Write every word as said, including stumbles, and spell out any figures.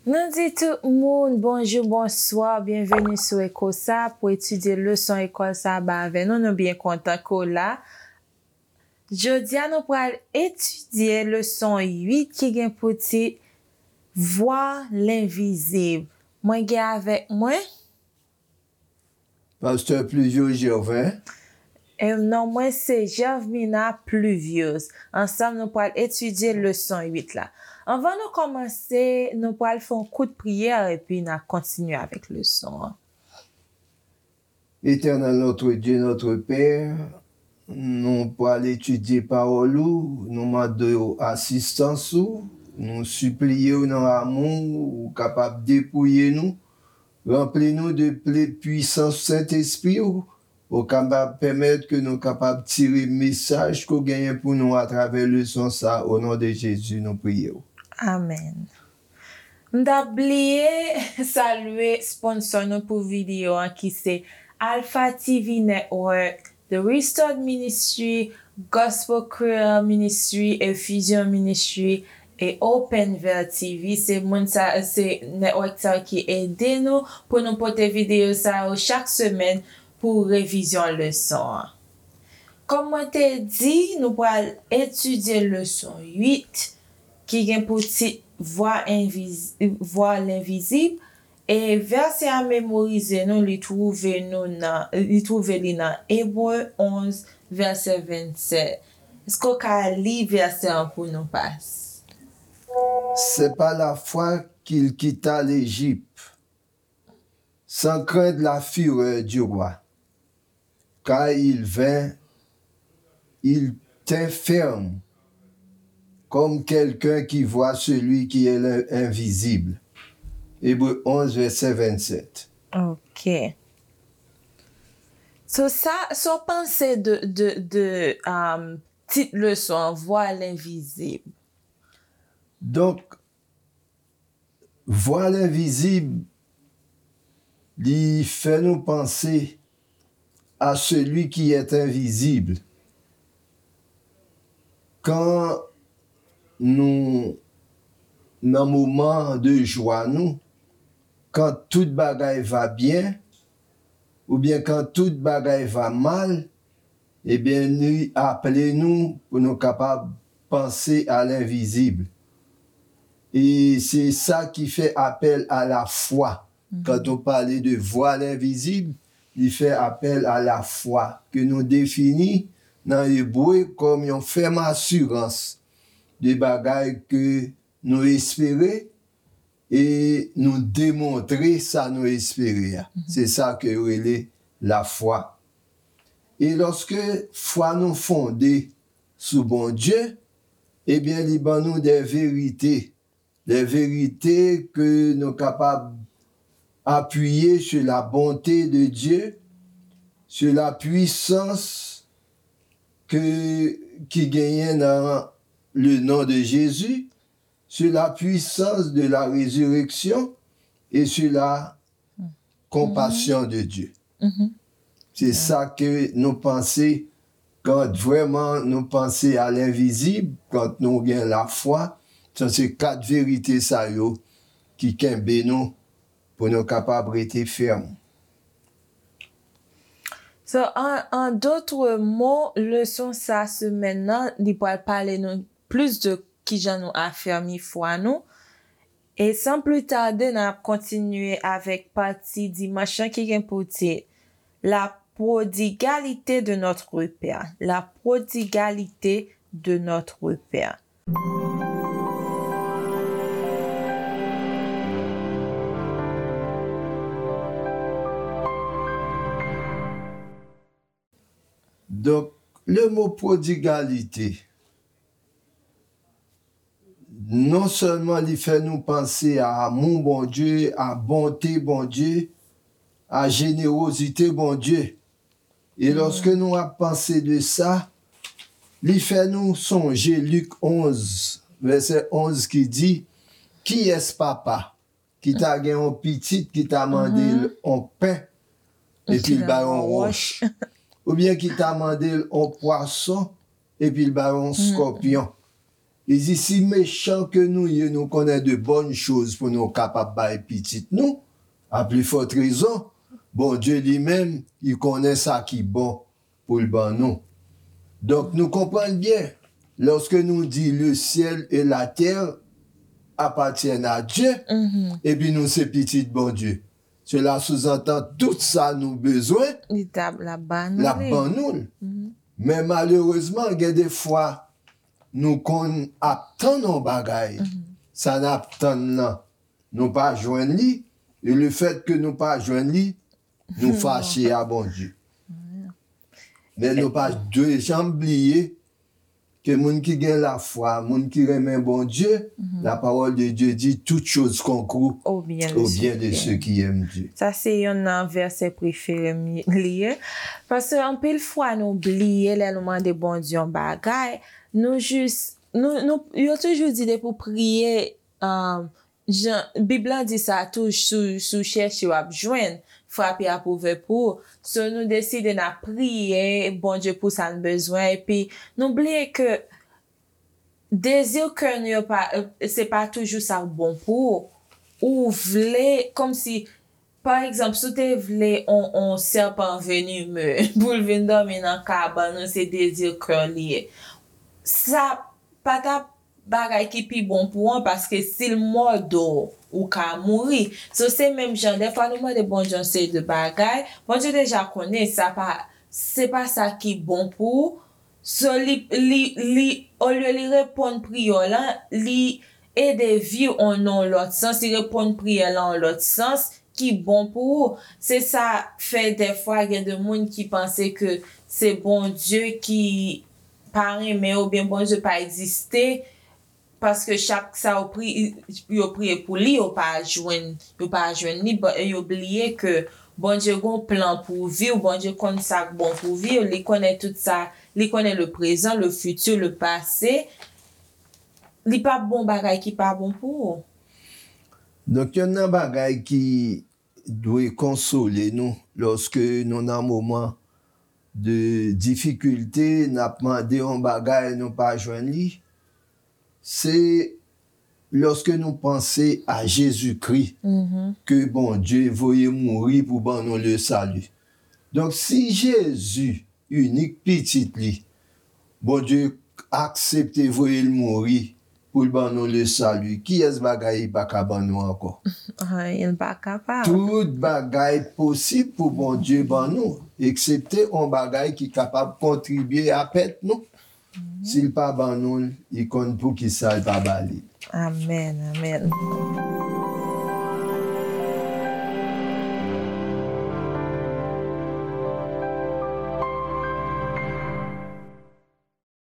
Nou di tout moun bonjou, bonswa, byenveni sou Echo sa pou etidye leson lekòl sa ba avè nou. Nou byen kontan ke w la. Jodi a, nou pral etidye leson uit ki gen pou tit Vwa lenvizib. Mwen gen avèk mwen Pastè Pluviose Gervin. E non mwen se Gervina Pluviose. Ansanm, nou pral etidye leson uit la. Anvan nou kòmanse, nou pral fè yon kout priyè epi n a kontinye avèk leson an. Éternel notre Dieu, notre Père, nou pral etidye pawòl ou, nou mande w asistans ou, nou sipliye w nan amou ou kapab depouye nou, ranpli nou de ple pwisans Sentespri w, ou kapab pèmèt ke nou kapab tire mesaj ke w genyen pou nou atravè leson sa, o non de Jezi, nou priye w. Amèn. M t ap bliye salye sponsò nou pou videyo an ki se Alpha T V Network, The Restored Ministry, Gospel Creole Ministry, Effusion Ministry, e Open Veil T V. Se moun sa, se network sa yo ki ede nou pou nou pote videyo sa yo chak semèn pou revizyon leson an. Kòm mwen te di, nou pral etidye leson uit ki gen pou tit Vwa enviz-, Vwa lenvizib, e vèsè a memorize nou, li twouve nou nan, li twouve li nan Ebre onz, vèsè vennsèt. Èske w ka li vèsè an pou nou, pas? C'est par la foi qu'il quitta l'Égypte, sans craindre la fureur du roi, car il vint, il tint ferme, comme quelqu'un qui voit celui qui est l'in-, invisible. Ebre onz, vèsè vennsèt. Ok. So, sa, sa w panse de, de, de, um, tit leson an, Vwa lenvizib? Donk, Vwa lenvizib, li fè nou panse à celui qui est invisible. Kan nou nan moman de jwa nou, kan tout bagay va byen, oubyen kan tout bagay va mal, ebyen, li aple nou pou nou kapab panse à l'invisible. E se sa ki fè apèl à la foi. Quand on parle de voir l'invisible, li fè apèl à la foi, ke nou defini nan ebre kòm yon fèm asirans de bagay ke nou espere e nou demontre sa nou espere a. Se sa ke yo rele lafwa. E lòske fwa nou fonde sou Bondye, ebyen, li ban nou de verite. De verite ke nou kapab apiye sur la bonté de Dieu, sur la puissance ke, ki genyen nan le nom de Jésus, sur la puissance de la résurrection et sur la compassion de Dieu. Se sa ke nou panse, kan vrèman nou panse à l'invisible, kan nou gen lafwa, sa se kat verite sa yo ki kenbe nou pou nou kapab rete fèm. So, an, an dòt mo, leson sa semèn nan, li pral pale nou plis de kijan nou afèmi fwa nou. E san pli tade, n ap kontinye avèk pati dimanch lan ki gen pou tit La prodigalité de notre Père. La prodigalité de notre Père. Donk, le mo prodigalite, non sèlman li fè nou panse a amou Bondye, a bonte Bondye, a jenerozite Bondye. E lòske nou ap panse de sa, li fè nou sonje Lik onz, vèsè onz ki di, kiyès papa ki ta gen yon pitit ki ta mande l yon pen, epi l ba yon wòch. Oubyen ki ta mande l yon pwason, epi l ba yon skòpyon. Li di, si mechan ke nou ye, nou konnen de bonnes choses pou nou kapab bay pitit nou, a pli fòt rezon, Bondye li menm, li konnen sa ki bon pou l ban nou. Donk, nou konprann byen, lòske nou di le ciel et la terre appartiennent à Dieu, epi nou se pitit Bondye, cela sous-entend tout sa nou bezwen, Li t ap, l ap ba nou l ap li. Ban nou l. Men malerezman, gen de fwa, nou konn ap tann yon bagay, sa n ap tann nan, nou pa jwenn li, e le fèt ke nou pa jwenn li, nou fache a Bondye. Men nou pa dwe janm bliye ke moun ki gen lafwa, moun ki renmen Bondye, la parole de Dieu dit toute chose concourt Au bien de au ceux bien qui de ceux aiment. Qui aiment Dieu. Sa se yonn nan vèsè prefere m li ye. Paske anpil fwa nou bliye lè nou mande Bondye yon bagay, nou jis, nou, nou, yo toujou di depi w priye, um, jan, Bib lan di sa tou, si w, si w chèche w ap jwenn, frape ap ouvè pou ou. So nou deside n ap priye Bondye pou sa n bezwen, epi nou bliye ke dezi kè nou yo pa, se pa toujou sa k bon pou ou. Ou vle, kòmsi, pa egzanp, si w te vle on, on sèpan venime pou l vin dòmi nan kabann ou, se dezi kè w li ye. Sa pa t ap bagay ki pi bon pou ou an, paske si l mòde w, ou ka mouri. So se menm jan, dèfwa nou mande Bondye yon seri de bagay, Bondye deja konnen sa pa, se pa sa ki bon pou ou. So li, li, li, olye li reponn priyè w lan, li ede vi w an yon lòt sans, li reponn priyè lan an lòt sans ki bon pou ou. Se sa fè dèfwa gen de moun ki panse ke se Bondye ki pa renmen yo, oubyen Bondye pa egziste, paske chak sa yo pri-, yo priye pou li, yo pa jwenn, yo pa jwenn li, ba-, yo bliye ke Bondye gon plan pou vi w, Bondye konn sa k bon pou vi w, li konnen tout sa, li konnen le prezan, le fiti, le pase. Li p ap bon bagay ki pa bon pou ou. Donk, yonn nan bagay ki dwe konsole nou lòske nou nan moman de difikilte, n ap mande yon bagay, nou pa jwenn li, se lòske nou panse a Jezikri ke Bondye voye mouri pou ban nou le sali. Donk, si Jezi, inik pitit li, Bondye aksepte voye l mouri pou l ban nou le sali, kiyès bagay li pa ka ban nou ankò? Anyen l pa kapab. Tout bagay posib pou Bondye ban nou, eksepte yon bagay ki kapab kontribye a pèt nou. Si l pa ban nou l, li konn poukisa l pa ba li. Amèn, amèn.